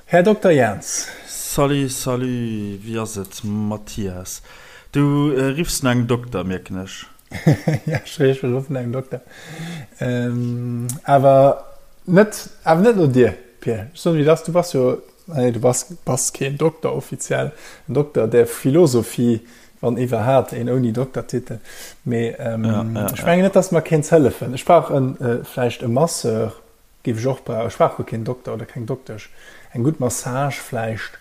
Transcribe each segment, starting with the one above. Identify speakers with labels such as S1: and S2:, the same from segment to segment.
S1: Här Dokter Jans.
S2: Salut, salut, wéi ass et Mathias? Du riffs no engem Dokter, mierken ech.
S1: Ja, ech ruffen no engem Dokter. Awer net, awer net no dir, Pir. Ech soen, wéi et ass, du bass jo, nee, du bass, bass keen Dokter offiziell, en Dokter der Philosophie, wann iwwerhaapt een ouni Doktertitel. Mee ech mengen net, dass mer kéints hëllefen. Ech brauch en, vläicht e Masseur. Géif ech och brauchen. Ech brauch guer keen Dokter oder keng Doktesch. Eng gutt Massage vläicht,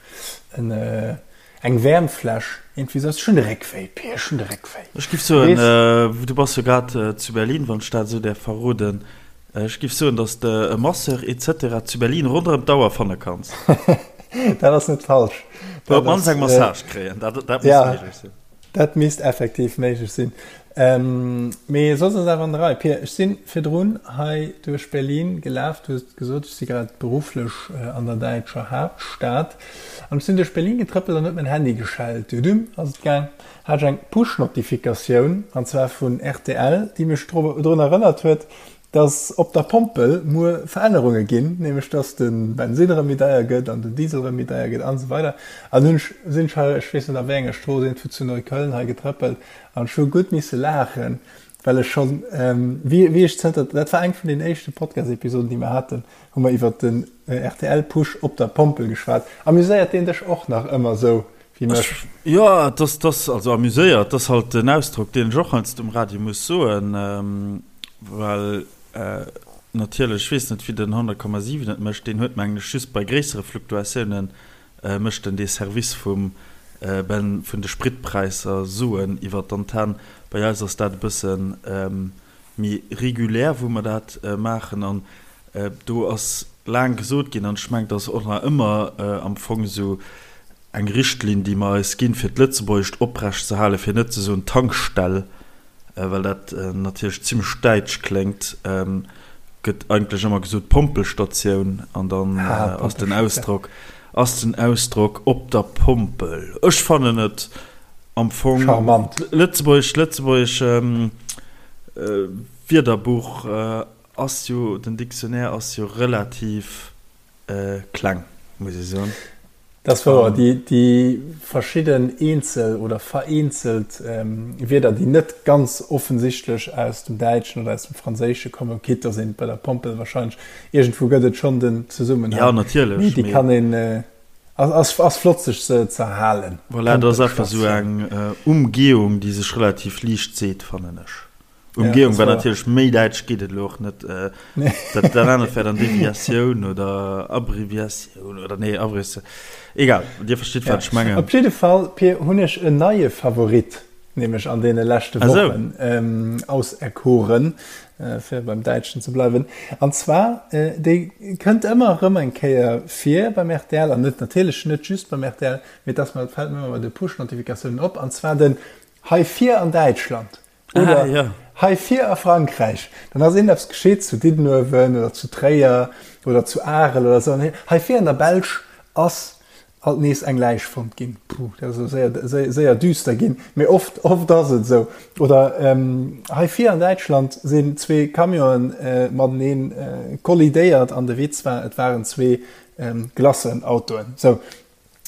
S1: en eng Wäermfläsch, iergendwéi esou. Ech hunn de Réck wéi, Pir, ech hunn de Réck wéi.
S2: Ech giff soen, du bass jo grad zu Berlin, wann ech dat esou däerf verroden, ech giff soen, dass de e Masseur et cetera zu Berlin ronderëm d'Auer fanne kanns.
S1: Dat ass net falsch.
S2: Oder op d'mannst eng Massage kréien, dat muss méiglech sinn.
S1: Dat misst effektiv méiglech sinn. Mee soss ass awer an der Rei. Pir, ech si virdrun hei duerch Berlin gelaf. Du hues gesot, ech si grad berufflech an der däitscher Haaptstad. An ech sinn duerch Berlin getrëppelt an huet mäin Handy geschellt. Dudum ass et gaang. Hat ech eng Push-Notifikatioun, an zwar vun rtl, déi mech drun erënnert huet, dass op der Pompel muer Verännerunge ginn, nämlech dass de Bensinn erëm méi deier gëtt an den Diesel erëm méi deier gëtt an esou weider. An hunn ech, sinn ech hei, ech weess net a wéi enger Strooss, iergendwou zu Neukölln hei getrëppelt an ech hu gutt misse laachen, well ech schonn, wéi, wéi ech zënter, dat war eng vun den éischte Podcast-Episoden, déi mer haten, hu mer iwwert den RTL-Push op der Pompel geschwat. Amuséiert deen dech och nach ëmmer esou wéi mech?
S2: Jo, et ass, et ass, also amuséiert, et ass halt en Ausdrock, deen ech och heiansdo um Radio muss soen. Well natierlech, ech weess net wéi den 100,7 et mécht, deen huet mengen ech just bei gréissere Fluktuatiounen mécht en dee Service vum Ben vun de Spritpräisser soen iwwer d'Antenn. Bei eis ass dat e bësse méi regulär wou mer dat maachen an do ass laang gesot ginn, an ech mengen et ass och nach ëmmer am Fong esou eng Richtlinn déi mer eis ginn fir d'Lëtzebuergescht oprecht ze halen, fir net ze soen Tankstell, well dat natierlech zimmlech däitsch kléngt, gëtt eigentlech ëmmer gesot Pompelstatioun an dann ass den Ausdrock ass den Ausdrock op der Pompel. Ech fannen et am Fong
S1: charmant.
S2: Lëtzebuergesch Lëtzebuergesch Wierderbuch ass jo, den Dictionnaire ass jo relativ Kleng, muss ech soen.
S1: Dat ass wouer. Déi verschidden eenzel oder vereenzelt Wierder, déi net ganz offensichtlech aus dem Däitschen oder aus dem Franséische kommen, quitte dass een bei der Pompel wahrscheinlech, iergendwou gëtt et schonn den Zesummenhang,
S2: Jo, natierlech,
S1: mee déi kann een, ass flott sech se z'erhalen.
S2: Voilà, dat ass einfach esou eng Umgehung, déi sech relativ liicht seet, fannen ech. Umgehung war natierlech méi däitsch geet et elo och net. Dat dat anert wär dann Deviatioun oder Abbreviatioun oder nee Abbreviatioun. Egal, Dir verstitt wat ech mengen.
S1: Op jidde Fall, Pir, hunn ech en neie Favorit, nämlech an deene leschte Wochen auserkoren, fir beim Däitschen ze bleiwen. An zwar, dee kënnt ëmmer erëm eng Kéier vir beim rtl, an net natierlech net just beim rtl, mee et ass mer, et fält mir ëmmer bei de Push-Notifikatiounen op, an zwar den Hei vir an Däitschland. Oder ah, ja. hei vir a Frankräich, dann ass iergendeppes geschitt zu Diddenuewen oder zu Tréier oder zu Arel oder esou. An hei vir an der Belsch ass alt nees eng Läich fonnt ginn. Puh, dat ass elo séier, séier, séier düster ginn. Mee oft, oft ass et esou. Oder ähm, hei vir an Däitschland sinn zwee Camionen äh, mateneen äh, kollidéiert an de Witz war, et waren zwee ähm, Glacenautoen. Sou.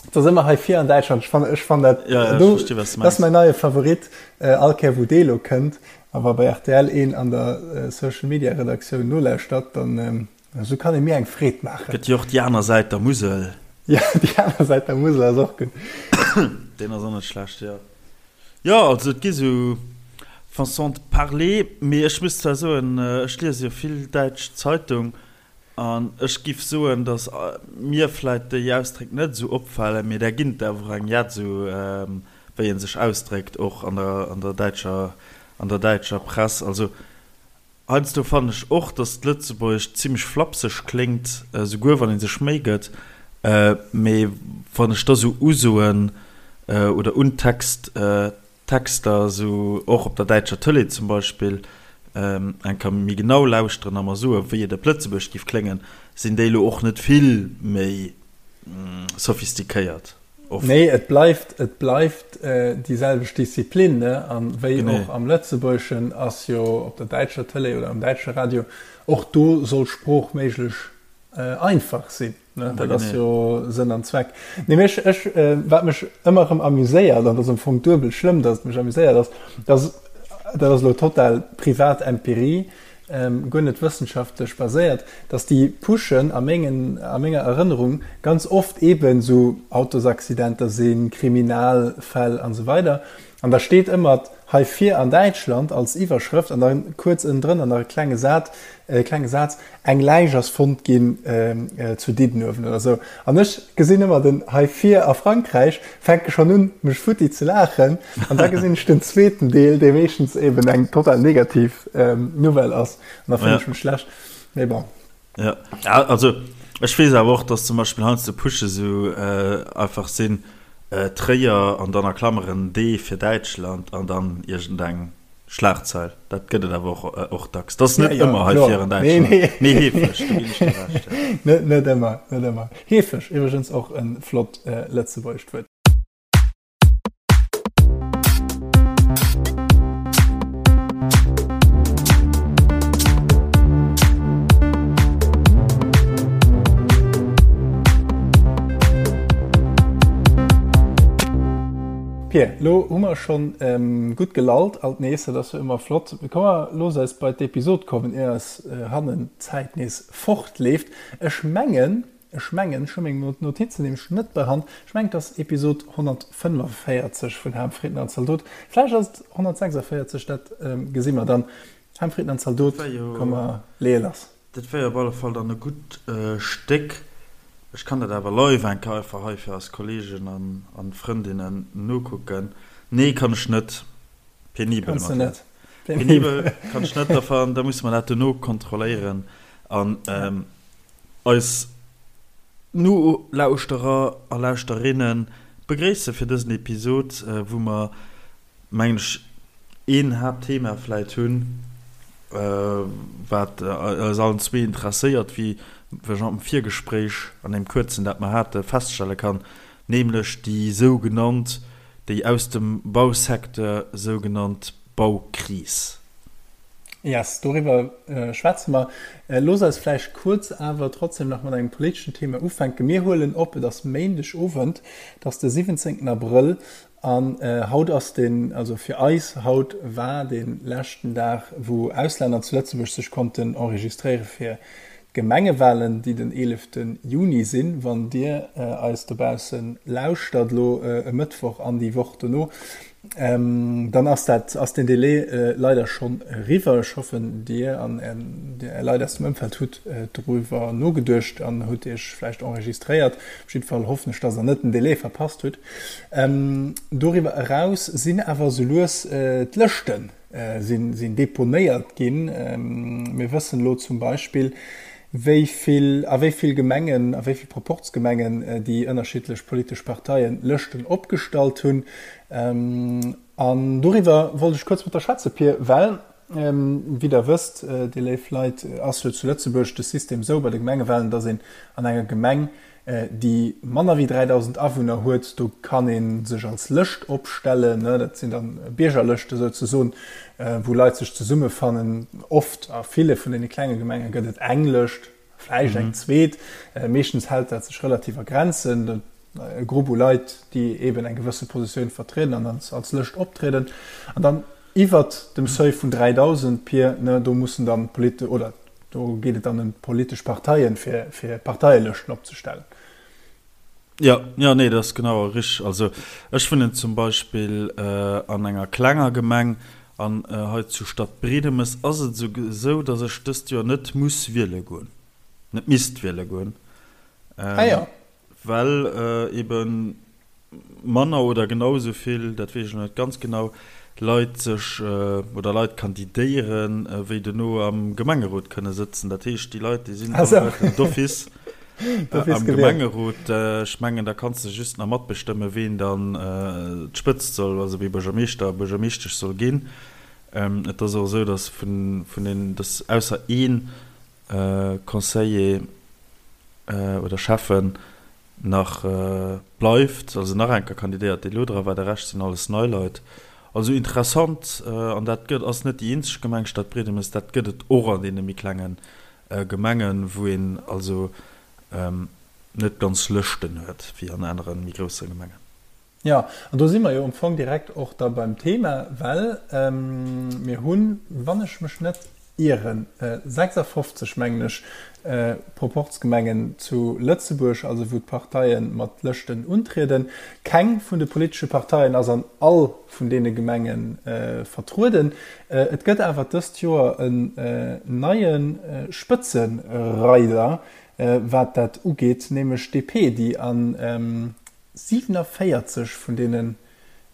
S1: Et ass ëmmer hei vir an Däitschland. Ech fannen, ech fannen dat,
S2: Ja, ja, ech
S1: do,
S2: versti, wat s du
S1: dat ass
S2: mengs.
S1: mäin neie Favorit. Äh, all Kéier wou dee lo kënnt, a wa bei rtl een an der äh, Social Media Redaktioun nolauschtert, dann ähm, esou kann ee mir eng Freed maachen.
S2: Gëtt jo och déi aner Säit der Musel.
S1: Ja, déi aner Säit der Musel ass och gutt.
S2: Deen ass och net schlecht, jo. Jo, also et gi sou Façon de parler, mee ech muss zwar soen, ech liese jo vill däitsch Zeitung, An ech giff soen, dass mir vläit déi Ausdréck net esou opfalen, mee där ginn et awer och eng jett, esou wéi ee sech ausdréckt, och an der, an der däitscher, an der däitscher Press. Also heiansdo fannen ech och, dass d'Lëtzebuergescht zimmlech flapseg kléngt, souguer wann ee sech Méi gëtt. Mee wann ech da sou Usoen oder un Text, Texter, esou och op der däitscher Tëlee zum Beispill, eng Kéier méi genau lauschteren a mer soen, wéi et op Lëtzebuerg géif kléngen, sinn déi elo och net vill méi sophistiquéiert
S1: oft. Nee, et bleift, et bleift déi selwecht Disziplin, ne? A wéi och am Lëtzebuergeschen ass jo op der däitscher Tëlee oder am däitsche Radio, och do soll Sprooch méiglech einfach sinn. Ne? Dat ass jo Sënn an Zweck. Nee, mech, ech, äh, wat mech ëmmer erëm amuséiert, an dat ass am Fong duebel schlëmm, datt et mech amuséiert, ass, datt, dat ass elo total privat Empirie, ähm, guer net wëssenschaftlech baséiert, datt déi Pushen a mengen, a menger Erënnerung ganz oft eeben esou Autosaccidenter sinn, Kriminalfäll an esou weider. An da steet ëmmer hei vir an Däitschland als Iwwerschrëft an da kuerz ënnendrënner nach e klenge Saz, e klenge Saz, Eng Läich ass fonnt ginn zu Diddenuewen oder esou. An ech gesinn ëmmer den hei vir a Frankräich, fänke schonn un, mech futti ze laachen. An da gesinn ech den zweeten Deel, dee meeschtens eben eng total negativ Nouvelle ass. An da fillen ech mech schlecht. Mee bon.
S2: Jo, also ech weess awer och, dass zum Beispill heiansdo Pushe sou einfach sinn, Tréier an dann a Klammeren D fir Däitschland an dann iergendeng Schlagzeil. Dat gëtt et awer och och dacks. Dat ass net ëmmer hei vir an Däitschland, mee heefeg, do ginn ech dir
S1: Recht. Net net ëmmer, net ëmmer. Heefeg, iwwregens och e flott lëtzebuergescht Wuert. Pir, lo hu mer schonn gutt gelallt alt nees, dat ass jo ëmmer flott. Komm mer looss eis bei d'Episod kommen, ier eis hannen d'Zäit nees fortleeft. Ech mengen, ech mengen, ech hu meng Notizen nämlech net bei Hand, ech mengen et ass Episod 145 vun Ham, Fritten an Zaldot. Vläicht ass et 146, dat gesi mer dann. Ham, Fritten an Zaldot, komm mer leeë lass.
S2: Dat wär jo op alle Fall dann e gutt Stéck. Ech kann dat awer live eng Kéier einfach hei fir eis Kollegen an Frëndinnen nokucken. Nee, kann ech net. Penibel
S1: Kanns de net.
S2: Penibel kann ech net. Da da musse mer dat dono kontrolléieren an eis Nolauschterer a Lauschterinnen begréisse fir dësen Episod, wou mer mengen ech, een Haaptthema vläit hunn, wat eis allen zwee interesséiert, wéi ech am Virgespréich, an deem kuerzen, dat mer hate, feststelle kann, nämlech déi sougenannt, déi aus dem Bausecteur sougenannt Baukris.
S1: Yes, doriwwer schwätze mer. Looss eis vläicht kuerz awer trotzdem nach mat engem politeschen Thema ufänken. Mir huelen op, et ass Méindegowend, et ass de 17. Abrëll An haut ass den, also fir eis haut war de leschten Dag, wou Auslänner zu Lëtzebuerg sech konnten enregistréiere fir d'Gemengewahlen, déi den 11 Juni sinn. Wann Dir eis dobausse lauschtert elo e Mëttwoch an déi Woch dono, dann ass dat, ass den Delai leider schonn eriwwer. Ech hoffen, Dir an Är Leit aus dem Ëmfeld hutt doriwwer nogeduecht an hutt Iech vläicht enregistréiert. Op jidde Fall hoffen ech, dass Der net den Delai verpasst hutt. Doriwwer eraus sinn awer esou lues d'Lëschte sinn deponéiert ginn. Mir wëssen elo zum Beispill, wéi vill, a wéi vill Gemengen, a wéi vill Proporzgemengen déi ënnerschiddlech politesch Parteien Lëschten opgestallt hunn. An doriwwer wollt ech kuerz mat der schwätze, Pir, well, wéi Der wësst, Dir léif Leit, ass jo zu Lëtzebuerg de System esou bei de Gemengewahlen, dass een an enger Gemeng déi manner wéi 3.000 Awunner huet, do kann ee sech als Lëscht opstellen, dat sinn dann Biergerlëschte souzesoen, wou Leit sech zesummefannen. Oft, a ville vun deene klenge Gemenge gëtt et eng Lëscht, vläicht eng zweet, meeschtens hält dat sech relativ a Grenzen, e Grupp u Leit, déi eeben eng gewësse Positioun vertrieden an als Lëscht optrieden. An dann iwwert dem Seuil vun 3.000, Pir, do mussen dann d'Polit-, oder Do geet et dann ëm d'politesch Parteien, fir, fir Parteielëschten opzestellen.
S2: Jo, jo, nee, dat ass genau richteg. Also ech wunnen zum Beispill an enger klenger Gemeng an hei zu Stadtbriedemes ass et esou, datt ech dëst Joer net muss wiele goen, net misst wiele goen.
S1: Ah jo.
S2: Well ebe manner oder genau esou vill, dat weess ech elo net ganz genau, Leit sech oder Leit kandidéieren, wéi dono am Gemengerot kënne sëtzen. Dat heescht, déi Leit, déi sinn alleguerten d'office am Gemengerot. Ech mengen, da kanns de just nach matbestëmmen, ween dann d'Spëtzt soll, also wee Buergermeeschter a Buergermeeschtesch soll ginn. Et ass och esou, datt vun den, datt ausser ee Conseiller oder Schäffen nach bleift, also nach eng Kéier kandidéiert, dee lo dra war, de Rescht sinn alles nei Leit. Also interessant, an dat gëtt, ass net déi eenzeg Gemeng, Stadbriedemes, dat gëtt et och an deene méi klenge Gemengen, wou een also. net ganz Lëschten huet, wéi an anere méi grousse Gemengen.
S1: Jo, an do si mer jo am Fong direkt och da beim Thema, well mir hunn, wann ech mech net ieren, 56, mengen ech, Proporzgemengen zu Lëtzebuerg, also wou d'Parteie mat Lëschten untrieden. Keng vun de politesche Parteien ass an all vun deene Gemenge vertrueden. Et gëtt awer dëst Joer en neie Spëtzereider, wat dat ugeet, nämlech d'DP, déi an 47 vun deenen,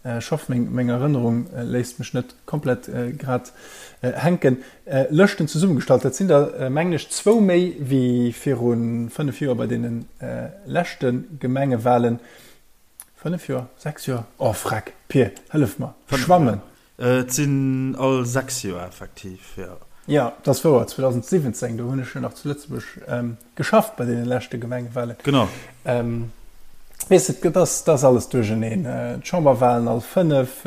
S1: ech hoff meng meng Erënnerung léisst mech net komplett grad hänken, Lëschten zesummegestallt. Dat sinn der mengen ech zwou méi wéi viru 5 Joer bei deene leschte Gemengewahlen. 5 Joer? 6 Joer? Oh freck, Pir, hëllef mer, schwammen!
S2: Et sinn all 6 Joer effektiv, jo.
S1: Jo, dat ass wouer. 2017, do hunn ech jo nach zu Lëtzebuerg geschafft bei deene leschte Gemengewahlen.
S2: Genau.
S1: Weess de, dat ass, dat ass alles duercherneen. D'Chamberwahlen all 5,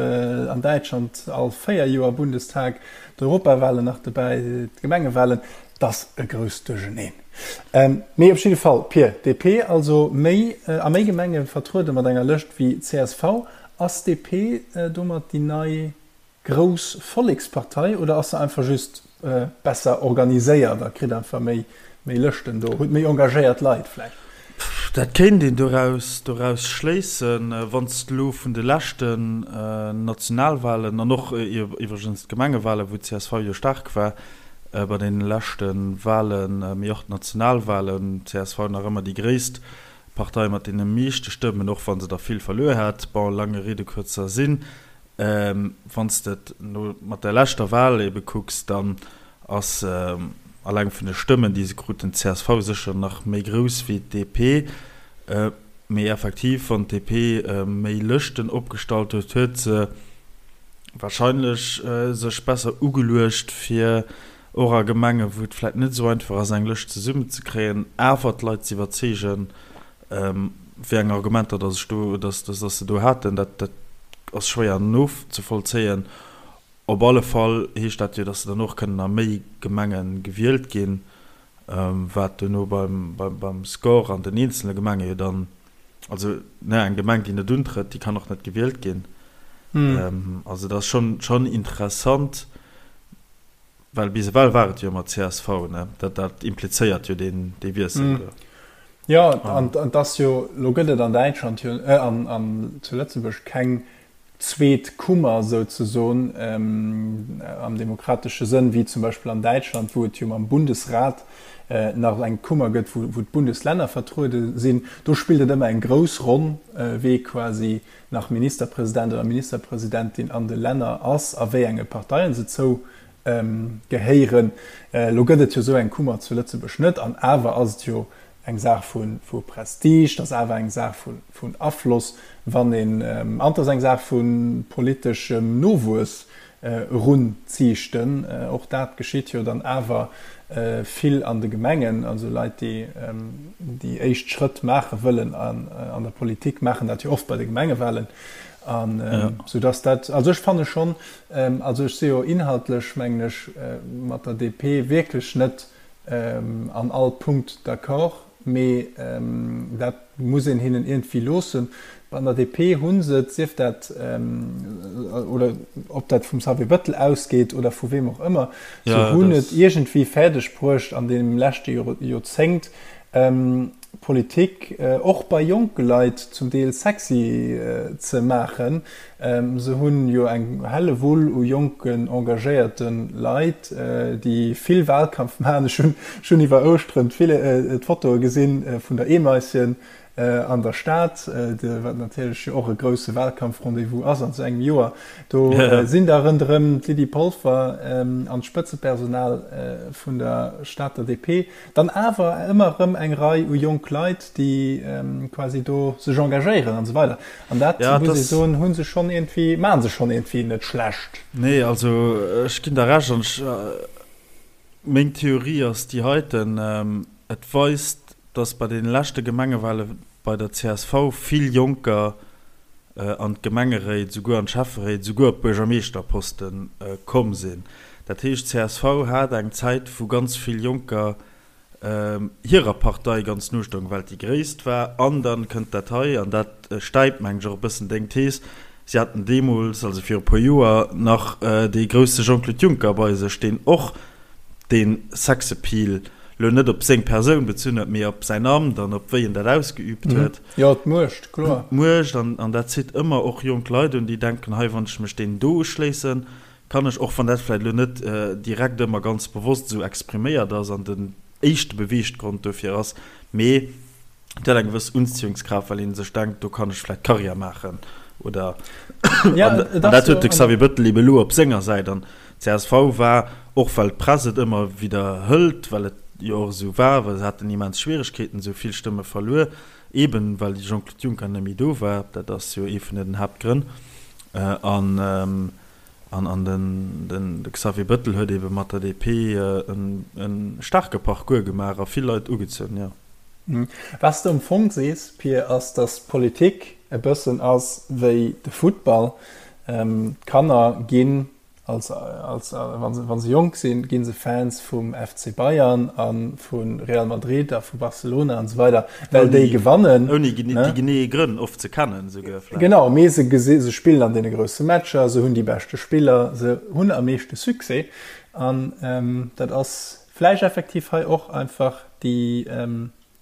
S1: an Däitschland all 4 Joer, Bundestag, d'Europawahlen nach dobäi, d'Gemengewahlen, dat ass e grousst Duercherneen. Mee op jidde Fall, Pir, DP also méi, a méi Gemenge vertruede mat enger Lëscht wéi csv. Ass DP domat déi nei grouss Vollekspartei oder ass se einfach just besser organiséiert a kritt einfach méi méi Lëschten do, huet méi engagéiert Leit vläicht?
S2: Dat kéint een doraus doraus schléissen. Wann s de elo vun de leschten Nationalwahlen an och iwwregens d'Gemengewahlen, wou csv jo staark war bei deene leschte Wahlen, mee och d'Nationalwahlen, csv nach ëmmer déi gréisst Partei mat deene meeschte Stëmmen, och wa se der vill verluer hat. Bon, lange Rede, kurzer Sinn, wann s de et no mat der leschter Wahl ebe kucks, dann ass alleng vun de Stëmmen, déi se kruten, d'CSV sécher nach méi grouss wéi d'DP. Mee effektiv, wann d'DP méi Lëschten opgestallt huet, huet se wahrscheinlech sech besser ugeluecht, fir och a Gemengen, wou et vläit net esou einfach ass, eng Lëscht zesummenzekréien, awer d'Leit ze iwwerzeegen, wéi eng Argumenter dass ech do, dass, dass se do haten, dat, dat ass schwéier nozevollzéien. Op alle Fall heescht dat jo, dass se dann och kënnen a méi Gemenge gewielt ginn, wat duerno beim, beim, beim Score an den eenzele Gemenge jo dann, also, ne, eng Gemeng, déi net untrëtt, déi kann och net gewielt ginn. Also dat ass schonn, schonn interessant. Well bis ewell war et jo ëmmer csv, ne? Dat, dat implizéiert jo deen, dee Wiessel do.
S1: Jo, an et ass jo, elo gëtt et an Däitschland jo, an, an zu Lëtzebuerg keng zweet Kummer souzesoen am demokratesche Sënn, wéi zum Beispill an Däitschland, wou et jo mam Bundesrat nach eng Kummer gëtt, wou, wou d'Bundeslänner vertruede sinn. Do spillt et ëmmer eng grouss Ronn, wee quasi nach Ministerpresident oder Ministerpresidentin an de Länner ass a wéi enge Parteien se zou gehéieren. Elo gëtt et jo esou eng Kummer zu Lëtzebuerg net, an awer ass et jo eng Saach vu Prestige, et ass awer eng Saach vun Afloss, wann een, an et ass eng Saach vu politeschem Nowuess erunziichten. Och dat geschitt jo dann awer vill an de Gemengen. Also Leit, déi déi éischt Schrëtt maache wëllen an der Politik, maachen dat jo oft bei de Gemengewahlen. An soudass dat, also ech fanne schonn, also ech si jo inhaltlech, mengen ech, mat der DP wierklech net an all Punkt d'accord, mee dat muss een hinnen iergendwéi loossen. An der DP hu se et, sief dat, oder ob dat vum Xavier Bettel ausgeet oder vu weem och ëmmer, se hunn et iergendwéi fäerdeg bruecht an deem leschte Joerzéngt, Politik och bei jonke Leit zum Deel sexy ze maachen. Se hunn jo eng Hellewull u jonken engagéierte Leit, déi vill Wahlkampf maachen. Ech hunn schonn iwwer Ouschteren d'Fotoe gesinn vun der Eemaischen an der Stad, wat natierlech jo och e grousse Wahlkampf-Rendez-vous ass an esou engem Joer. Do sinn da ronderëm d'Lydie Polfer an d'Spëtzepersonal vun der Stater DP Dann awer ëmmer erëm eng Rei u jonk Leit, déi quasi do sech engagéieren an esou weider. An dat, muss ee soen, hu se schonn iergendwéi, maache se schonn iergendwéi net schlecht.
S2: Nee, also ech ginn der Recht an ech, meng Theorie ass déi heiten, Et weist, datt bei deene leschte Gemengewale bei der csv vill Jonker an d'Gemengeréit, souguer an d'Schäfferéit, souguer op d'Buergermeeschterposte komm sinn. Dat heescht, csv hat eng Zäit, wou ganz vill Jonker. Hirer Partei ganz no stoung, well et déi gréisst war. An dann kënnt dat hei, an dat stäipt, mengen ech, och e bëssen deng Thees, Si haten deemools, also viru e puer Joer, nach dee grousse Jean-Claude Juncker bei sech, deen och dee Sexappeal lo net op seng Persoun bezunn huet, mee op säin Amt an op wéi en dat ausgeüübt huet.
S1: Jo, d'Muecht, kloer.
S2: D'Muecht, an dat zitt ëmmer och jonk Leit un, déi denken, hei, wann ech mech deenen do uschléissen, kann ech, och wann dat vläicht elo net direkt ëmmer ganz bewosst esou expriméiert ass an den éischte Beweeggrond dofir ass, mee et huet eng gewëss Unziehungskraaft, well ee sech denkt, do kann ech vläicht Karriär maachen oder an dat huet de Xavier Bettel ebe elo op senger Säit. An d'CSV war, och well d'Press et ëmmer widderhëlt, well et jo och esou war, well se haten immens Schwieregkeeten, se hu vill Stëmme verluer, eben well de Jean-Claude Juncker net méi do war, dat ass jo ee vun den Haaptgrënn. An an den de Xavier Bettel huet ebe mat der DP e staarke Parcours gemaach a vill Leit ugezunn, jo.
S1: Wat s de am Fong sees, Pir, ass, datt d'Politik e bëssen ass wéi de Futtball. D'Kanner ginn als, als, wa se, wa se jonk sinn, gi se Fans vum FC Bayern a vu Real Madrid a vu Barcelona an esou weider, well déi gewannen.
S2: Ouni déi genee Grënn oft ze kennen esouguer
S1: vläicht. Genau, mee se gesi, se spillen an deene grousse Matcher, se hunn déi beschte Spiller, se hunn am meeschte Succès. An dat ass vläicht effektiv hei och einfach déi,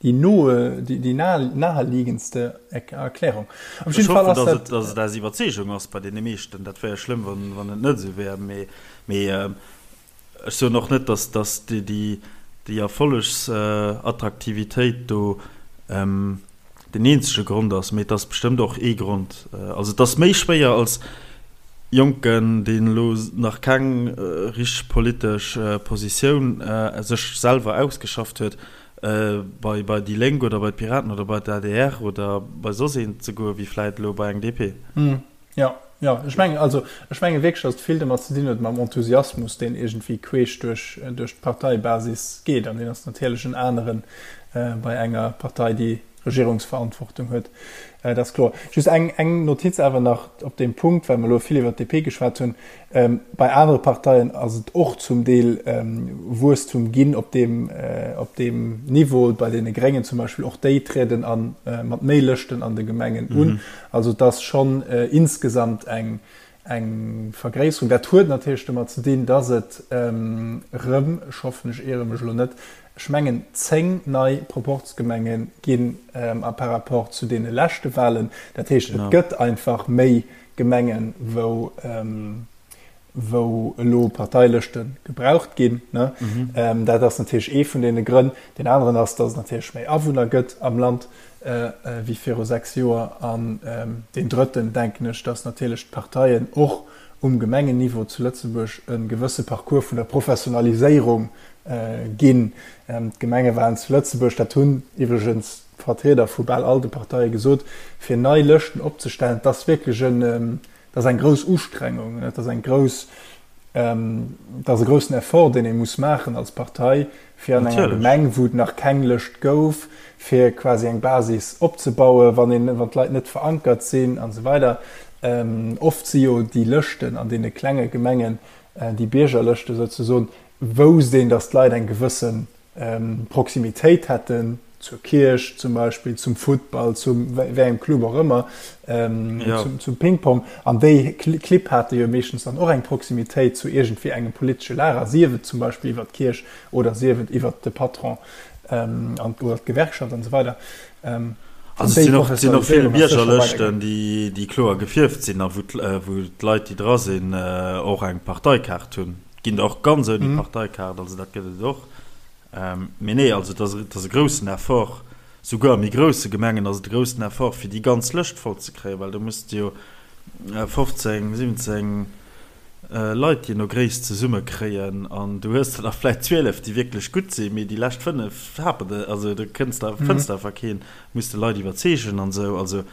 S1: Déi noe, déi naheliegendste Erklärung.
S2: Op jidde Fall ass dat. Dass et aus Iwwerzeegung ass bei deene meeschten. Dat wär jo schlëmm, wann et net esou wär. Mee ech soen och net, dass déi Erfollegsattraktivitéit do den eenzege Grond ass, mee et ass bestëmmt och ee Grond. Also et ass méi schwéier als Jonken, deen elo nach keng richteg politesch Positioun sech selwer ausgeschafft huet, bei bei déi Lénk oder bei d'Piraten oder bei d'ADR oder bei soss een ze goen, wéi vläit elo bei eng DP.
S1: Jo, jo, ech mengen, also ech menge wierklech, datt et vill domat ze dinn huet mam Enthusiasmus, deen iergendwéi queesch duerch duerch d'Parteibasis geet. An deen ass natierlech en aneren bei enger Partei, déi Regierungsverantwortung huet. Dat ass kloer. Just eng eng Notiz awer nach op deem Punkt, well mer elo vill iwwert d'DP geschwat hunn. Bei anere Parteien ass et och zum Deel Wuesstum ginn op deem, op deem Niveau, bei deene Gréngen zum Beispill, och déi trieden a mat méi Lëschten an de Gemengen un. Also et ass schonn insgesamt eng, eng Vergréisserung. Dat huet natierlech domat ze dinn, datt et erëm, ech hoffen ech iere mech elo net, ech mengen 10 nei Proporzgemenge ginn a par rapport zu deene leschte Wahlen. Dat heescht, et gëtt einfach méi Gemengen, wou, wou elo Parteilëschte gebraucht ginn. Dat ass natierlech ee vun deene Grënn. Deen aneren ass, datt et natierlech méi Awunner gëtt am Land wéi viru 6 Joer. An deen drëtten, denken ech, datt natierlech d'Parteien och um Gemengenniveau zu Lëtzebuerg e gewësse Parcours vun der Professionaliséierung ginn. D'Gemengewahlen zu Lëtzebuerg, dat hunn iwwregens Vertrieder vu bal all de Parteie gesot, fir nei Lëschten opzestellen, dat ass wierklech en, dat ass eng grouss Ustrengung, dat ass eng grouss, dat ass e groussen Effort, deen ee muss maachen als Partei, fir an enger Gemeng, wou et nach keng Lëscht gouf, fir quasi eng Basis opzebauen, wann een, wann d'Leit net verankert sinn an esou weider. Oft si jo déi Lëschten an deene klenge Gemengen, déi Biergerlëschte souzesoen, wousst een, datt d'Leit eng gewësse Proximitéit hätten zur Kierch zum Beispill, zum Futtball, zum wéi engem Club och ëmmer, zum Ping-Pong. An déi Clibb hate jo meeschtens dann och eng Proximitéit zu iergendwéi engem politesche Lager, sief et zum Beispill iwwer d'Kierch oder sief et iwwer de Patron an oder d'Gewerkschaft an esou weider.
S2: Also et sinn och, sinn och vill Biergerlëschten, déi, déi kloer gefierft sinn a wou d'Leit, déi dra sinn, och eng Parteikaart hunn. Ginn der och ganz ouni Parteikaart, also dat gëtt et och. Mee nee, also et ass, et ass e groussen Effort, souguer a méi grousse Gemengen ass et e groussen Effort, fir déi ganz Lëscht voll ze kréien, well do muss de jo 15, 17 Leit jee no Gréisst zesumme kréien an du hues der der vläicht 12, déi wierklech gutt sinn, mee déi lescht 5 hapert et, also do kënns de, fënns de einfach keen, muss de Leit iwwerzeegen an esou. Also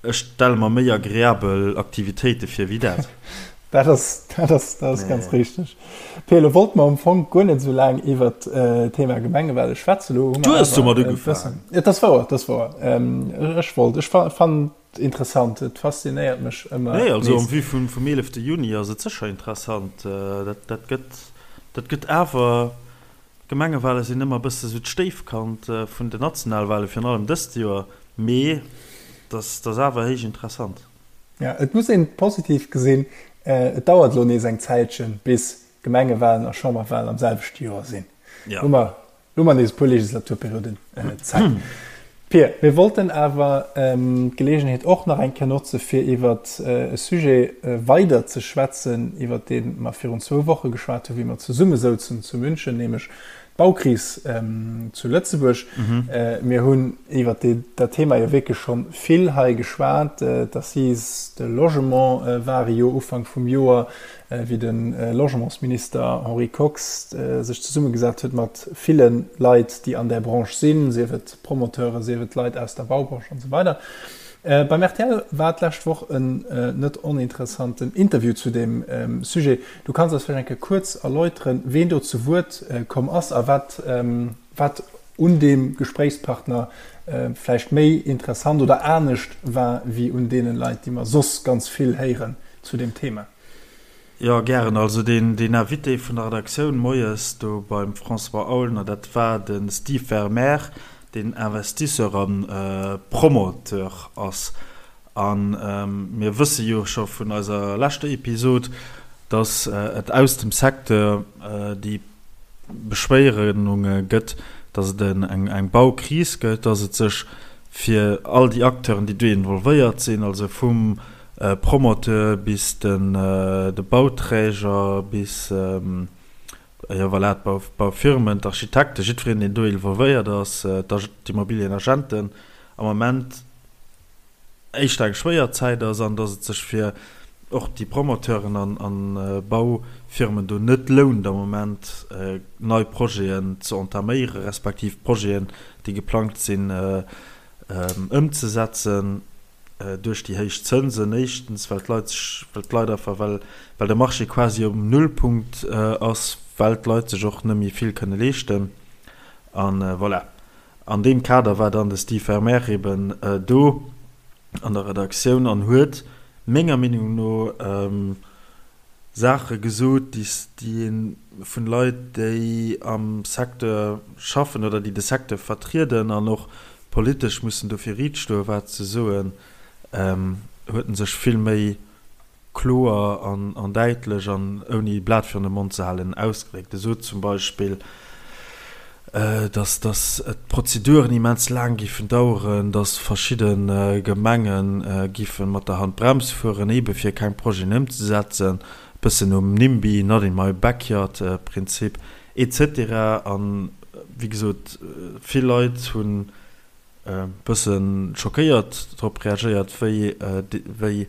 S2: Ech stelle mer méi agreabel Aktivitéite vir wéi dat.
S1: Dat ass, dat ass, dat ass ganz richteg. Pia, lo wollte mer am Fong guer net esou laang iwwert d'Thema Gemengewale schwätzen. Lo
S2: hu mer Du hues domat ugefaangen.
S1: Et ass wouer, et ass wouer. Ech wollt, ech fannen et interessant, et faszinéiert mech ëmmer
S2: Nee, also en vue vum, vum 11. Juni ass et sécher interessant. Dat, dat gëtt, dat gëtt awer. D'Gemengewale sinn ëmmer e bësse sou d'Stéifkand vun den Nationalwale, virun allem dëst Joer, mee dat ass awer héich interessant.
S1: Jo, et muss een positiv gesinn, et dauert elo nees eng Zäitchen, bis Gemengewalen a Chamberwalen am selwechte Joer sinn. Hu mer Elo hu mer nees e puer Legislaturperioden Zäit. Pir, mir wollten awer d'Geleegenheet och nach eng Kéier notze fir iwwer e Sujet weider ze schwätzen, iwwer dee mer virun zwou Woche geschwat hunn, wéi mer zesumme souzen zu München, nämlech d'Baukris zu Lëtzebuerg. Mir hunn iwwer dat Thema jo wierklech scho vill hei geschwat. D'Assises de Logement ware jo Ufank vum Joer. wéi de Logementsminister Henri Kox sech zesummegesat huet mat ville Leit, déi an där Branche sinn, sief et Promoteuren, sief et Leit aus der Baubranche an esou weider. Beim rtl war d'lescht Woch en net oninteressanten Interview zu deem Sujet. Du kanns eis vläicht eng Kéier kuerz erläuteren, ween do zu Wuert komm ass a wat wat un deem Gespréichspartner vläicht méi interessant oder anescht war wéi un deene Leit, déi mer soss ganz vill héieren zu deem Thema.
S2: Jo, gären. Also deen Invité vun der Redaktioun moies do beim François Aulner, dat war de Steve Vermeer, deen Investisseur a Promoteur ass. A mir wësse jo scho vun eiser leschter Episod, datt et aus dem Secteur déi Beschwéierunge gëtt, datt et eng Baukris gëtt, datt et sech fir all déi Acteuren, déi do involvéiert sinn, also vum Promoteur bis de Bauträger bis, jo voilà, d'Baufirmen, d'Architekten, jiddwereen, deen do involvéiert ass, d'Immobilienagenten am Moment éischter eng schwéier Zäit ass an datt et sech fir och déi Promoteuren an Baufirmen do net lount am Moment nei Projeten ze entaméiere respektiv Projeten, déi geplangt sinn, ëmzesetzen. Duerch déi héich Zënsen éischtens, well d'Leit sech, well d'Leit einfach, well, well de Marché quasi um Nullpunkt ass, well d'Leit sech och net méi vill kënne leeschten. A voilà. An deem Kader war dann de Steve Vermeer eben do an der Redaktioun an huet menger Meenung no Saache gesot, déi ee vun Leit, déi am Secteur schaffen oder déi de Secteur vertrieden an och politesch mussen dofir riit stoen, wat ze soen, huet en sech vill méi kloer an däitlech an ouni e Blat virun de Mond ze halen ausgedréckt. E sot zum Beispill, dass dass d'Prozeduren immens laang géifen daueren, dass verschidde Gemenge géife mat der Handbrems fueren, eebe fir keng Projeten ëmzesetzen, e bëssen nom NIMBY, not in my backyard, Prinzip, et cetera. An, wéi gesot, vill Leit hunn e bësse schockéiert drop reagéiert, wéi wéi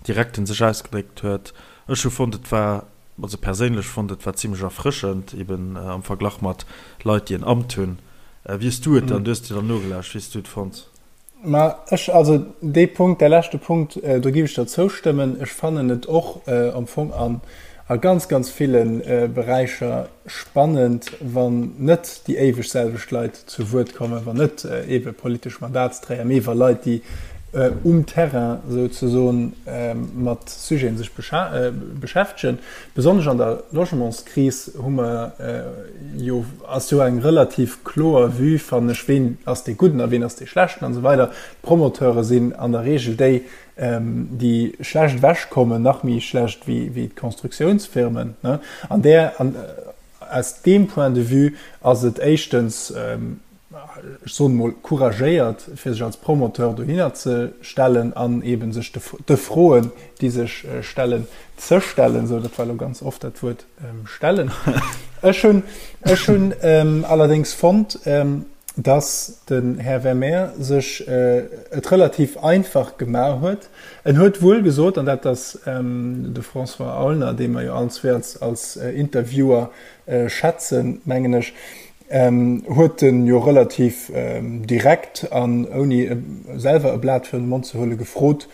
S2: direkt en sech ausgedréckt huet. Ech hu fonnt, et war Also perséinlech fonnt et war zimlech erfrëschend, eben am Verglach mat Leit déi en Amt hunn. Wéi hues du et dann, du hues dir dann nogelauscht, wéi hues du et fonnt?
S1: Ma ech, also dee Punkt, däi leschte Punkt, do giff ech der zoustëmmen. Ech fannen et och am Fong an a ganz, ganz ville Beräicher spannend, wann net déi éiweg selwecht Leit zu Wuert kommen, wann net eebe politesch Mandatsträger, mee wa Leit, déi um Terrain souzesoen mat Sujeten sech beschäftegen. Besonnesch an der Logementskris hu mer jo, ass jo eng relativ kloer Vue, fannen ech, ween ass dee Gudden a ween ass dee Schlechten an esou weider. D'Promoteure sinn an der Regel déi, déi schlecht ewechkommen, nach méi schlecht wéi d'Constructiounsfirmen. An där, aus deem Point de vue ass et éischtens, ech soen emol, couragéiert, fir sech als Promoteur dohinner ze stellen an eebe sech de Froen, déi sech stellen, ze stellen. Sou, dat war elo ganz oft dat Wuert stellen. Ech hunn, ech hunn allerdéngs fonnt, dass den Här Vermeer sech et relativ einfach gemaach huet. En huet wuel gesot, an dat ass de François Aulner, dee mer jo allen zwee als Interviewer schätzen, mengen ech, huet en jo relativ direkt an ouni selwer e Blat virun de Mond ze huele gefrot,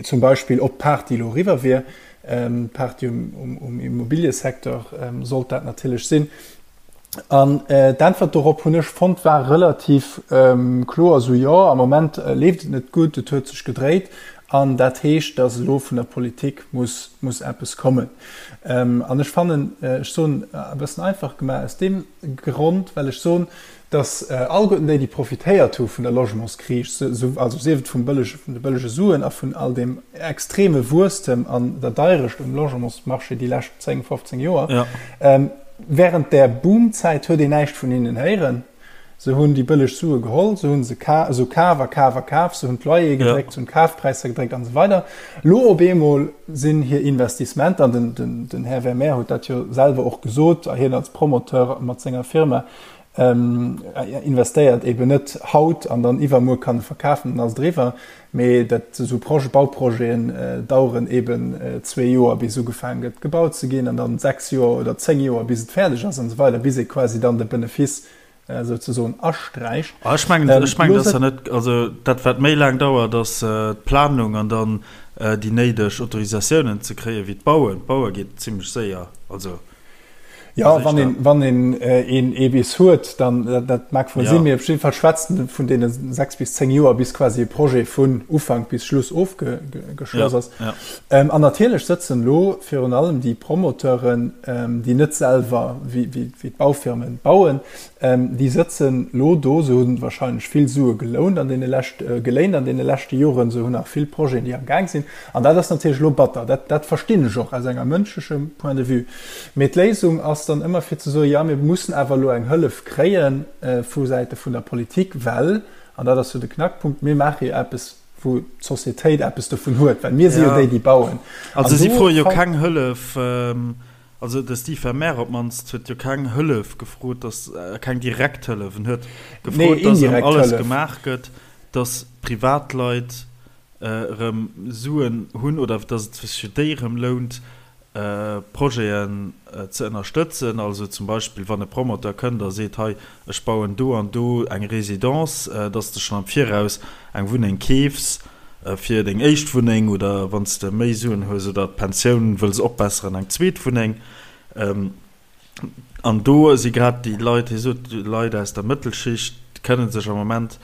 S1: zum Beispill ob d'Party elo eriwwer wier. D'Party um Immobiliësecteur sollt dat natierlech sinn. An d'Äntwert dorop hunn ech fonnt war relativ kloer, esou jo, am Moment leeft et net gutt, et huet sech gedréit. An dat heescht, datt elo vun der Politik muss, muss eppes kommen. An ech fannen, ech soen e bëssen einfach gemaach, aus deem Grond, well ech soen, datt alleguerten déi, déi profitéiert hu vun der Logementskris, also sief et vum bëllege, vun de bëllege Suen a vun all deem extreme Wuesstem an der Deirecht um Logementsmarché déi lescht 10, 15 Joer, während där Boomzäit huet een näischt vun hinnen héieren. Se hunn déi bëlleg Sue geholl, se hunn se esou kaf a kaf a kaf, se hunn d'Loyere gedréckt, se hunn d'Kafpräisser gedréckt an esou weider. Elo op eemol sinn hir Investissementer, an den, den Här Vermeer huet dat jo selwer och gesot, a hien als Promoteur mat senger Firma investéiert eben net haut an dann iwwermuer kann e verkafen, dann ass et eriwwer, mee dat esou Projet, Bauprojeten daueren eben zwee Joer bis ugefaangen gëtt gebaut ze ginn an dann 6 Joer oder 10 Joer bis et fäerdeg ass an esou weider, bis ee quasi dann de Benefice souzesoen asträicht.
S2: Ah, ech mengen, ech mengen, dat ass ja net, also dat wat méi laang dauert ass d'Planung an dann déi néideg Autorisatiounen ze kréien, wéi d'Bauen. D'Baue geet zimlech séier, also.
S1: Jo, wann een, wann een een ee bis huet, dann, dat, dat mag wuel sinn, mee op jidde Fall schwätzt en vun deene 6 bis 10 Joer, bis quasi e Projet vun Ufank bis Schluss ofgeschloss ass. An natierlech sëtzen elo virun allem déi Promoteuren, déi net selwer wéi, wéi, wéi d'Baufirmen bauen, Déi sëtzen elo do, se hu wahrscheinlech vill Sue gelount an deene lescht, geléint an deene leschte Joren, se hunn nach vill Projeten, déi am Gaang sinn. An dat ass natierlech elo batter. Dat, dat verstinn ech och aus enger mënschlechem Point de vue. Mee d'Léisung ass dann ëmmer fir ze soen, jo, mir mussen awer elo eng Hëllef kréie vu Säite vun der Politik, well, an dat ass jo de Knackpunkt, mir maache jo eppes, wou d'Sociétéit eppes dovun huet, well mir si jo déi, déi bauen.
S2: Also si froe jo keng Hëllef. Also de Steve Vermeer op d'mannst huet jo keng Hëllef gefrot, dass, keng direkt Hëllef, en huet gefrot, dass erëm alles gemaach gëtt, dass Privatleit erëm Suen hunn oder dass et sech fir déi erëm lount, Projeten ze ënnerstëtzen. Also zum Beispill wann e Promoteur kënnt a seet, hei ech bauen do an do eng Résidence, dass de schonn am Viraus eng Wunneng keefs, Fir deng éischt Wunneng oder wann s de méi Suen hues oder d'Pensioun wëlls opbesseren, eng zweet Wunneng. An do si grad déi Leit, hie sot, Leit aus der Mëttelschicht kënne sech am Moment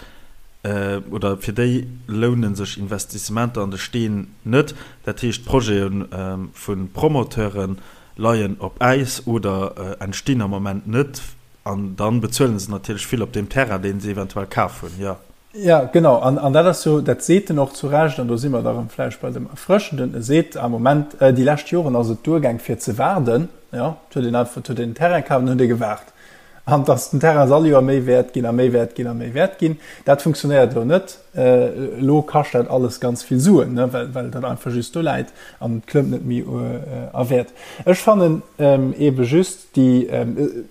S2: oder fir déi loune sech Investissementer an de Steen net. Dat heescht, d'Projete vu Promoteure leien op Äis oder entstinn am Moment net. An dann bezuelen se natierlech vill op deem Terrain, deen se eventuell kaf hunn, jo.
S1: Jo, genau. An, an dat ass jo, dat seet en och zu Recht, an do si mer da rëm vläicht bei dem Erfrëschenden, e seet am Moment, déi lescht Joren ass et duergaang fir ze waarden, jo, et huet een einfach, et huet een den Terrain kaf an huet ee gewaart. An dass den Terrain ass all Joer méi wäert ginn a méi wäert ginn a méi wäert ginn, dat funktionéiert elo net. Elo kascht dat alles ganz vill Suen, ne, well, well dat einfach just do läit an et klëmmt net méi a Wäert. Ech fannen eebe just, Déi,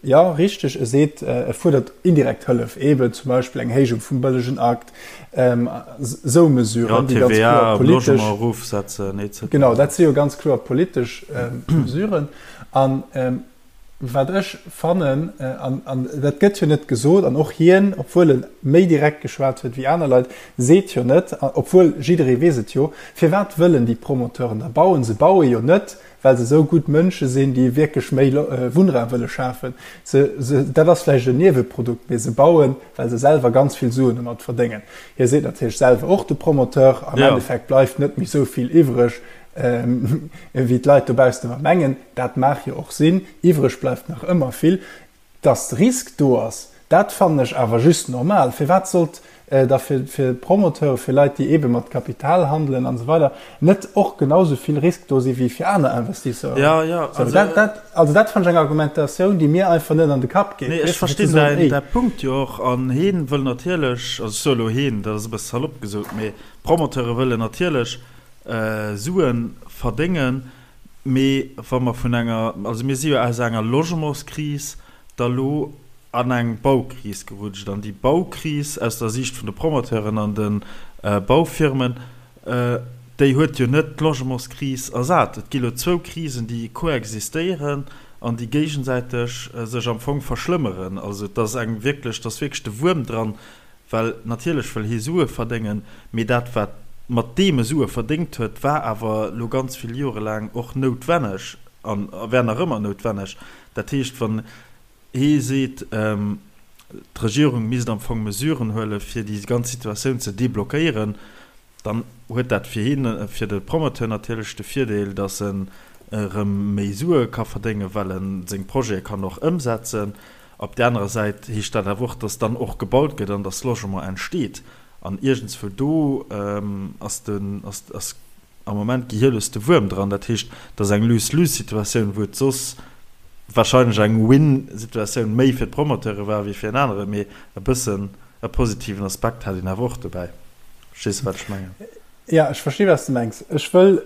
S1: jo, richteg, e seet, e fuerdert indirekt Hëllef, eeben zum Beispill eng Héijung vum bëllegen Akt, esou Mesuren, déi ganz kloer politesch.
S2: Jo, TVA um Logement erofsetzen, et
S1: cetera. Genau, dat si jo ganz kloer politesch Mesuren. An wat ech fannen, an dat gëtt jo net gesot, an och hien, obwuel e méi direkt geschwat huet wéi aner Leit, seet jo net, obwuel jidderee weess et jo, firwat wëllen déi Promoteuren da bauen? Se baue jo net, well se esou gutt Mënsche sinn, déi wierklech méi Wunnraum wëlle schafen. Se, se, dat ass vläicht en Nieweprodukt, mee se bauen, well se selwer ganz vill Suen domat verdéngen. Hie seet natierlech selwer och, de Promoteur, am Endeffekt bleift net méi esou vill iwwreg, wéi d'Leit dobaussen ëmmer mengen. Dat mag jo och sinn, iwwreg bleift nach ëmmer vill. Dass de Risk do ass, dat fannen ech awer just normal. Firwat sollt da fir Promoteure, fir Leit, déi eebe mat Kapital handelen an esou weider, net och genau esou vill Risk do si wéi fir aner Investisseuren?
S2: Jo, jo,
S1: also dat, dat, also dat fannen ech eng Argumentatioun, déi mir einfach net an de Kapp geet.
S2: Nee, ech verstinn däin, däi Punkt jo och. An heen wëll natierlech, also ech soe elo heen, dat ass e bësse salopp gesot, mee d'Promoteure wëllen natierlech Sue verdéngen. Mee wa mer vun enger, also mir si jo aus enger Logementskris da lo an eng Baukris gerutscht. An déi Baukris aus der Siicht vun de Promoteuren an de Baufirmen, déi huet jo net d'Logementskris ersat. Et gi lo zwou Krisen, déi koexistéieren an déi géigesäiteg sech am Fong verschlëmmeren. Also et ass eng wierklech, et ass wierklech de Wuerm dran, Well natierlech wëll hie Sue verdéngen, mee dat wat mat deem e Sue verdéngt huet, war awer elo ganz vill Jore laang och noutwenneg a wär nach ëmmer noutwenneg. Dat heescht, wann hee seet, d'Regierung misst am Fong Mesuren huele fir déi ganz Situatioun ze deblockéieren, Dann huet dat fir hien, fir de Promoteur natierlech de Virdeel, datt en erëm méi Sue ka verdéngen, well e seng Projete kann och ëmsetzen. Op där anerer Säit heescht dat awer och, datt dann och gebaut gëtt an datt Logement entsteet. An iergendswou do ass den, ass, ass am Moment gehierlos de Wuerm dran. Dat heescht, et ass eng Lose-lose-Situatioun, wou et soss wahrscheinlech eng Win-Situatioun méi fir d'Promoteure war wéi fir en aneren. Mee e bëssen e positiven Aspekt hat een awer och dobäi. Verstees de, wat ech mengen?
S1: Jo, ech versti wat s de mengs. Ech wëll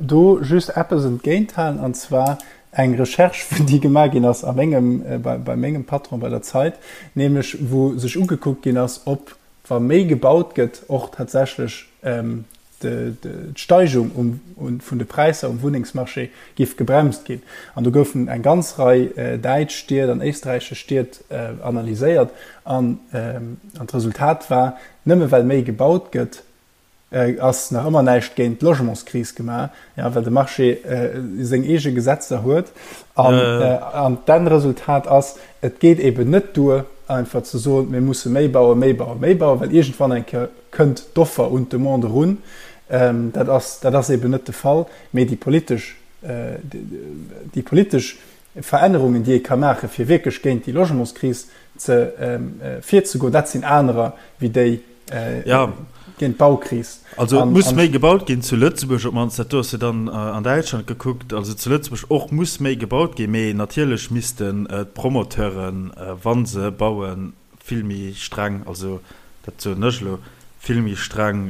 S1: do just eppes entgéinthalen, an zwar eng Recherche, déi gemaach ginn ass a mengem, bei mengem Patron bei der Zeit, nämlech wou sech ugekuckt ginn ass, ob, wa méi gebaut gëtt, och tatsächlech d'Steigung vun de Präisser um Wunnengsmarché géif gebremst ginn. An do goufen eng ganz Rei däitsch Stied an éisträichesch Stied analyséiert an d'Resultat war, nëmme well méi gebaut gëtt, ass nach ëmmer näischt géint d'Logementskris gemaach, ja, well de Marché seng eege Gesetzer huet. An d'Endresultat ass, et geet eben net duer, einfach ze soen, mir musse méi bauen, méi bauen, méi bauen, well iergendwann eng Kéier kënnt d'Offer un d'Demande erun. Dat ass, dat ass eben net de Fall. Mee déi politesch, déi politesch Verännerungen, déi ee ka maachen, fir wierklech géint déi Logementskris ze virzegoen, dat sinn anerer wéi déi géint d'Baukris.
S2: Also et muss méi gebaut ginn zu Lëtzebuerg op d'mannst, dat do ass jo dann an Däitschland gekuckt, also zu Lëtzebuerg och muss méi gebaut ginn, mee natierlech missten d'Promoteuren, wa se bauen, vill méi streng, also dat soen ech elo, vill méi streng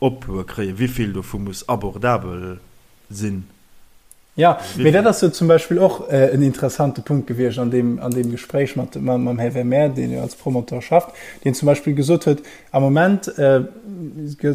S2: Oploe kréien, wéi vill dovu muss abordabel sinn.
S1: Jo, mee dat ass jo zum Beispill och en interessante Punkt gewiescht an deem, an deem Gespréich mat, mam Här Vermeer, deen jo als Promoteur schafft, deen zum Beispill gesot huet, am Moment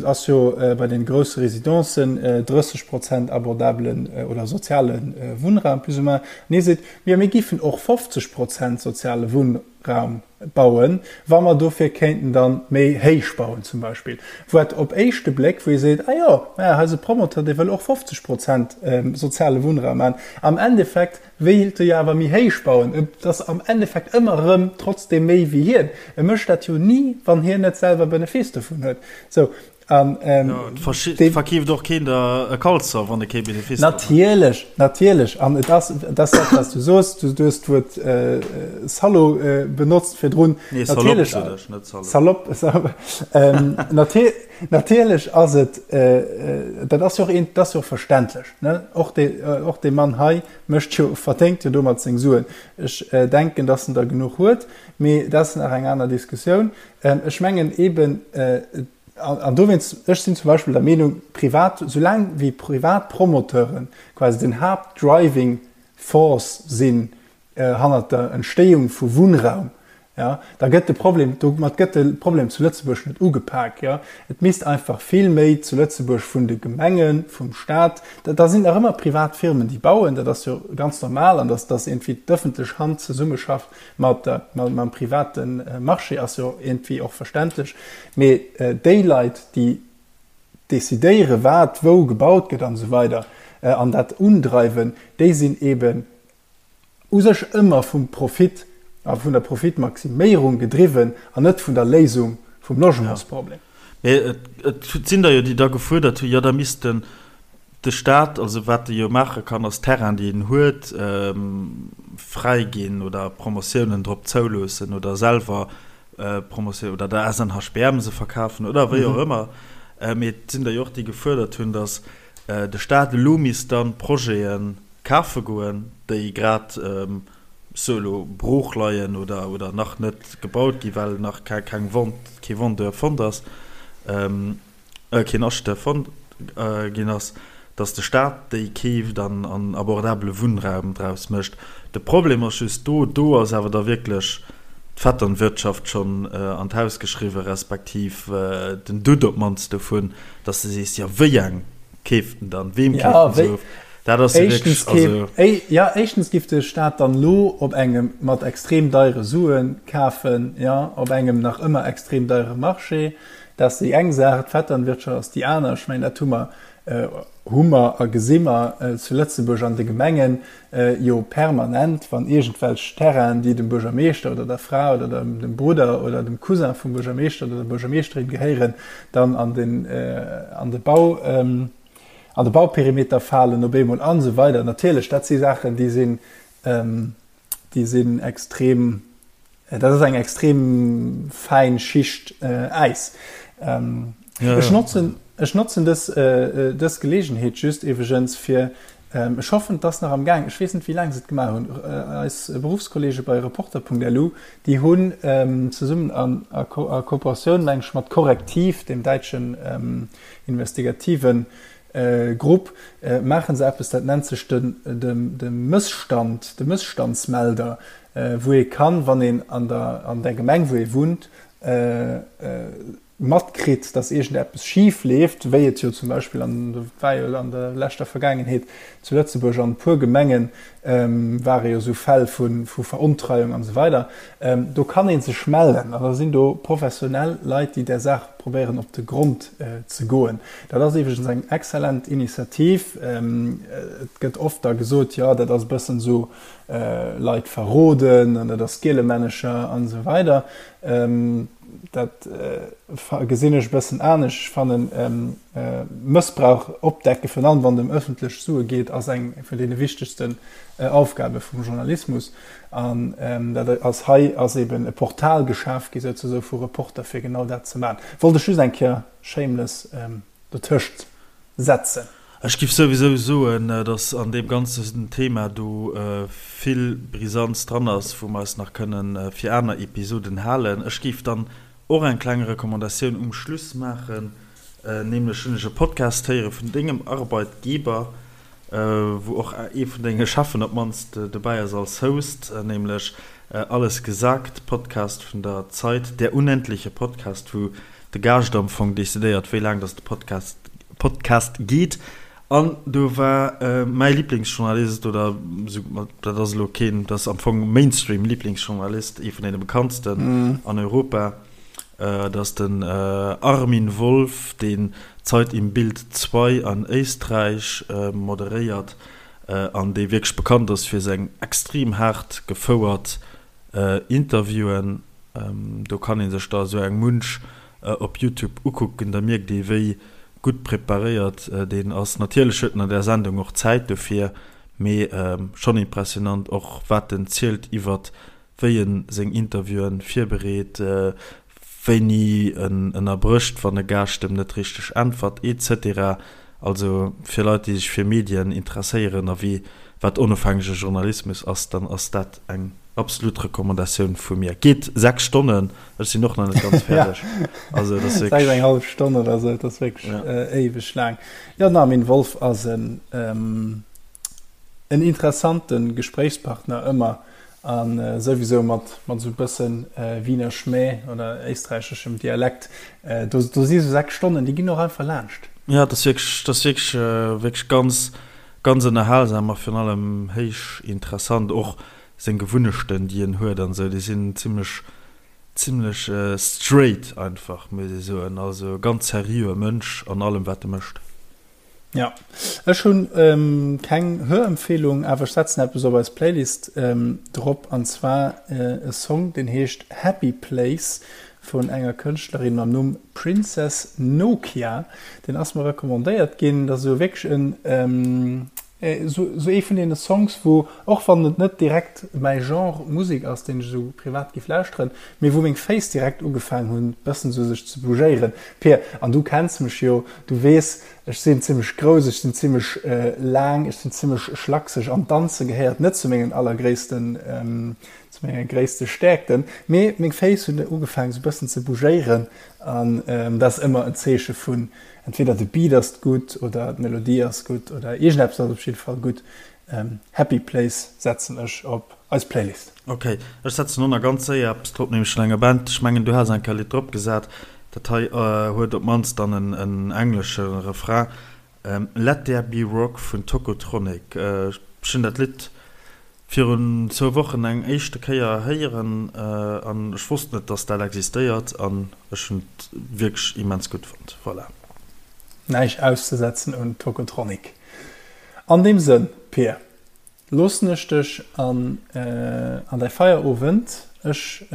S1: ass jo bei den grousse Residencen 30 Prozent abordabelen oder soziale Wunnraum plus ou moins, an hie seet, jo mir géifen och 50 Prozent soziale Wunnraum bauen, wa mer dofir kéinten dann méi héich bauen zum Beispill, wat op éischte Bléck, wou ee seet, ah jo, maja, hei ass e Promoteur, dee wëll och 50 Prozent soziale Wunnraum maachen, am Endeffekt wéilt e jo awer méi héich bauen, et ass am Endeffekt ëmmer erëm trotzdeem méi wéi hien, e mécht dat jo ni, wann hien net selwer Benefice dovun huet. Sou,
S2: An, ähm, ja, et verkeeft och keen der e Kalzer, wann e kee
S1: Benefice Natierlech, natierlech. An et ass, dat ass dat, wat du soos. Du, du hues d'Wuert äh, Salaud äh, benotzt virdrun.
S2: Nee, Salopp, sot ech,
S1: net Salaud. Salopp, Salopp. ähm, natier, natierlech ass et, äh, äh, dat ass jo och een, dat ass jo och verständlech, ne? Och de, äh, och de Mann hei mécht jo, verdéngt jo domat seng Suen. Ech äh, denken, dass en der genuch huet, mee dat ass nach eng aner Diskussioun. Ähm, ech mengen eben, äh, an dowéinst, ech sinn zum Beispill der Meenung, privat, soulaang wéi privat Promoteuren quasi den Haaptdriving Force sinn hannert der Entstéiung vu Wunnraum, jo, da gëtt de Problem, domat gëtt de Problem zu Lëtzebuerg net ugepak. Jo. Et misst einfach vill méi zu Lëtzebuerg vun de Gemengen, vum Staat, da sinn nach ëmmer privat Firmen, déi bauen, dat ass jo ganz normal, an dass, dass iergendwéi d'ëffentlech Hand zesummeschafft mat der, mam private Marché ass jo iergendwéi och verständlech, mee déi Leit, déi decidéiere wat wou gebaut gëtt an esou weider an dat undreiwen, déi sinn eeben u sech ëmmer vum Profit a vun der Profitmaximéierung gedriwwen an net vun der Léisung vum Logementsproblem.
S2: Mee et sinn der jo, déi da gefuerdert hunn, jo da misst den De Staat, also wat e jo maache kann, ass Terrain, déi en huet, fräiginn oder Promotiounen drop zouloossen oder selwer Promotioun oder der SNHBM se verkafen oder wéi och ëmmer. Mee et sinn der jo och, déi gefuerdert hunn, datt de Staat elo misst dann Projete kafe goen, déi grad, ech soe elo, brooch leien oder oder nach net gebaut gi well nach keng Vente, kee Vendeur fonnt ass. Keen Acheteur fonnt ginn ass, datt de Staat déi keeft an an abordabele Wunnraum draus mécht. De Problem ass just do, do ass awer da wierklech d'Vetternwirtschaft schonn an d'Haus geschriwwen, respektiv den Doute op d'mannst dovun, datt s de sees, jo wéi eng keeft en dann, weem keeft en se of?
S1: Dat ass jo wierklech, also. Jo, éischtens giff de Staat dann elo op engem mat extrem deiere Sue kafen, jo, op engem nach ëmmer extrem deiere Marché. Dat ass déi eng Saach, d'Vetternwirtschaft ass déi aner. Ech mengen, dat hu mer, hu mer a gesi mer zu Lëtzebuerg an de Gemengen jo permanent, wann iergendwelch Terrainen, déi dem Buergermeeschter oder der Fra oder dem Brudder oder dem Cousin vum Buergermeeschter oder der Buergermeeschterin gehéieren, dann an den, an de Bau, an de Bauperimeter falen op eemol an esou weider. Natierlech, dat si Saachen, déi sinn, déi sinn extrem, dat ass eng extrem fäin Schicht Äis. Ech notzen, ech notzen dës, dës Geleegenheet just iwweregens fir, ech hoffen, et ass nach am Gaang, ech weess net, wéi laang se et gemaach hunn, eis Beruffskollege bei Reporter.lu, déi hunn zesummen an a Kooperatioun, meng ech, mat Correctiv, deem däitschen investigativen Grupp, maache se eppes, dat nennt sech de Mësstand, de Mësstandsmelder, wou ee kann, wann een an der an der Gemeng, wou ee wunnt, matkritt, datt iergendeppes schif leeft, wéi et jo zum Beispill an, war jo an der leschter Vergaangenheet zu Lëtzebuerg an e puer Gemengen, ware jo esou Fäll vu Verontreiung an esou weider, do kann ee sech mellen an da sinn do professionell Leit, déi där Saach probéieren op de Grond ze goen. Dat ass iwwregens eng exzellent Initiativ. Et gëtt oft da gesot, jo dat ass e bëssen esou Leit verroden an dat ass Gielemännecher an esou weider. Dat gesinn ech e bëssen anescht. Ech fannen, Mëssbrauch opdecken, virun allem wann et ëm ëffentlech Sue geet, ass eng vun deene wichtegsten Aufgabe vum Journalismus. An dat ass hei ass eben e Portal geschaf gi souzesoe vu Reporter, fir genau dat ze maachen. Wollt ech just eng Kéier shameless dotëscht setzen.
S2: Ech giff souwisou soen, dass an deem ganzen Thema do vill Brisanz dran ass, wou mer eis nach kënnen fir aner Episoden halen. Ech géif dann och eng kleng Recommandatioun um Schluss maachen, nämlech hunn ech e Podcast héiere vun dengem Arbeitgeber, wou och ee vun denge Cheffen op d'mannst dobäi ass als Host, nämlech Alles gesagt, Podcast vun der Zeit, der unendliche Podcast, wou de Gaascht am Fong decidéiert, wéi laang dass de Podcast Podcast geet. An do war mäi Liblingsjournalist, oder esou, dat ass elo keen, dat ass am Fong Mainstream-Liblingsjournalist, ee vun deene bekanntsten an Europa, dat ass den Armin Wolf, deen Zeit im Bild 2 an Éisträich moderéiert an dee wierklech bekannt ass fir seng extrem haart gefouert Interviewen. Do kann ee sech der esou eng munch op Youtube ukucken, da mierkt ee wéi gutt preparéiert deen ass. Natierlech huet en an där Sendung och Zäit dofir, mee schonn impressionant och wat en zielt iwwert wéi en seng Interviewen virbereet, wéini en ënnerbrécht wann e Gaascht em net richteg äntwert etc. Also fir Leit déi sech fir Medien interesséieren a wéi wat onofhängege Journalismus ass, dann ass dat eng absolut Recommandatioun vu mir. Geet 6 Stonnen, ech sinn och nach net ganz fäerdeg.
S1: Also dat ass wierklech. 6 eng hallef Stonn oder sou, dat ass wierklech éiweg laang. Jo, den Armin Wolf ass en en interessante Gespréichspartner ëmmer a souwisou mat mat esou e bëssen Wiener Schmäh oder éisträicheschem Dialekt. Do do si sou 6 Stonnen, déi ginn och einfach laanscht.
S2: Jo, dat ass wierklech, dat ass wierklech, wierklech ganz, ganz ënnerhalsam a virun allem héich interessant. Och seng Gewunnechten déi en huet an esou, déi sinn zimlech zimlech straight einfach, muss ee soen. Also ganz seriöe Mënsch an allem wat e mécht.
S1: Ja, ech hunn keng Hörempfehlung, awer ech setzen eppes op eis Playlist drop, an zwar e Song deen heescht Happy Place vun enger Kënschtlerin mam Numm Princess Nokia. Deen ass mer recommandéiert ginn. Dat ass esou wierklech en Esou ee vun deene Songs, wou, och wann et net direkt mäi Genre Musek ass, deen ech esou privat giff lauschteren, mee wou meng Féiss direkt ugefaang hunn, bëssen esou sech ze bougéieren. Pir, an du kenns mech jo, du weess, ech sinn zimmlech grouss, ech sinn zimmlech laang, ech sinn zimmlech schlakseg an Danze gehéiert net zu mengen allergréissten, zu menge gréisste Stäerkten, mee meng Féiss hunn ugefaang esou bëssen ze bougéieren an dat ass ëmmer en Zeeche vun Entweder de Beat ass gutt oder d'Melodie ass gutt oder iergendeppes ass op jidde Fall gutt. Happy Place setzen ech op eis Playlist.
S2: Ok, ech setzen och nach ganz séier eppes drop, nämlech vun enger Band. Ech mengen du has eng Kéier e Lidd drop gesat. Dat hei huet op d'mannst dann en englesche Refrain, Let There Be Rock vun Tocotronic. Ech hunn dat Lidd. Virun zwou Wochen eng éischte Kéier héieren an ech wosst net dass dat existéiert an ech hunn et wierklech immens gutt fonnt. Voilà.
S1: Näischt auszesetzen un Tocotronic. An deem Sënn, Pir, loossen ech dech an an däi Feierowend. Ech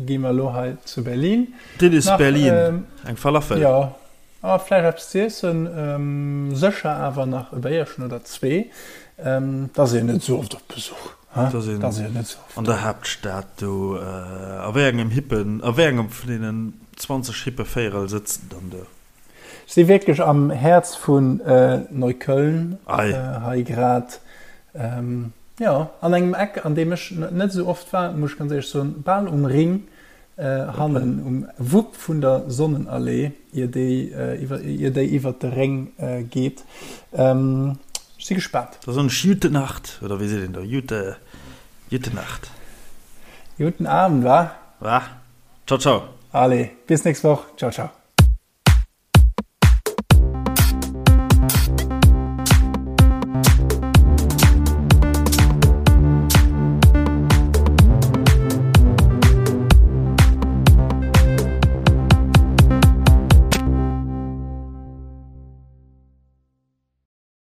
S1: gi mer elo hei zu Berlin
S2: Dit is Berlin, eng Falafel.
S1: Jo, A vläicht eppes ze iessen, sécher awer nach e Béierchen oder zwee. Et ass een net esou oft op Besuch,
S2: he? Et ass een net esou oft. An der Haaptstad do. A wéi engem hippen, a wéi engem vun deenen 20 hippe Véierel sëtzt en dann do?
S1: Ech si wierklech am Häerz vun Neukölln hei grad. Jo, an engem Eck, an deem ech net esou oft war, muss ech ganz éierlech soen, bal um Ring. Hannen um Wupp vun der Sonnenallee, ier déi iwwert de Réng geet. Ech si gespaant.
S2: Da soen ech Jute Nacht, oder wéi seet een do? Jute, Jute Nacht.
S1: Juten Abend, wa?
S2: Wa? Ciao, ciao.
S1: Allez, bis nächst Woch. Ciao, ciao.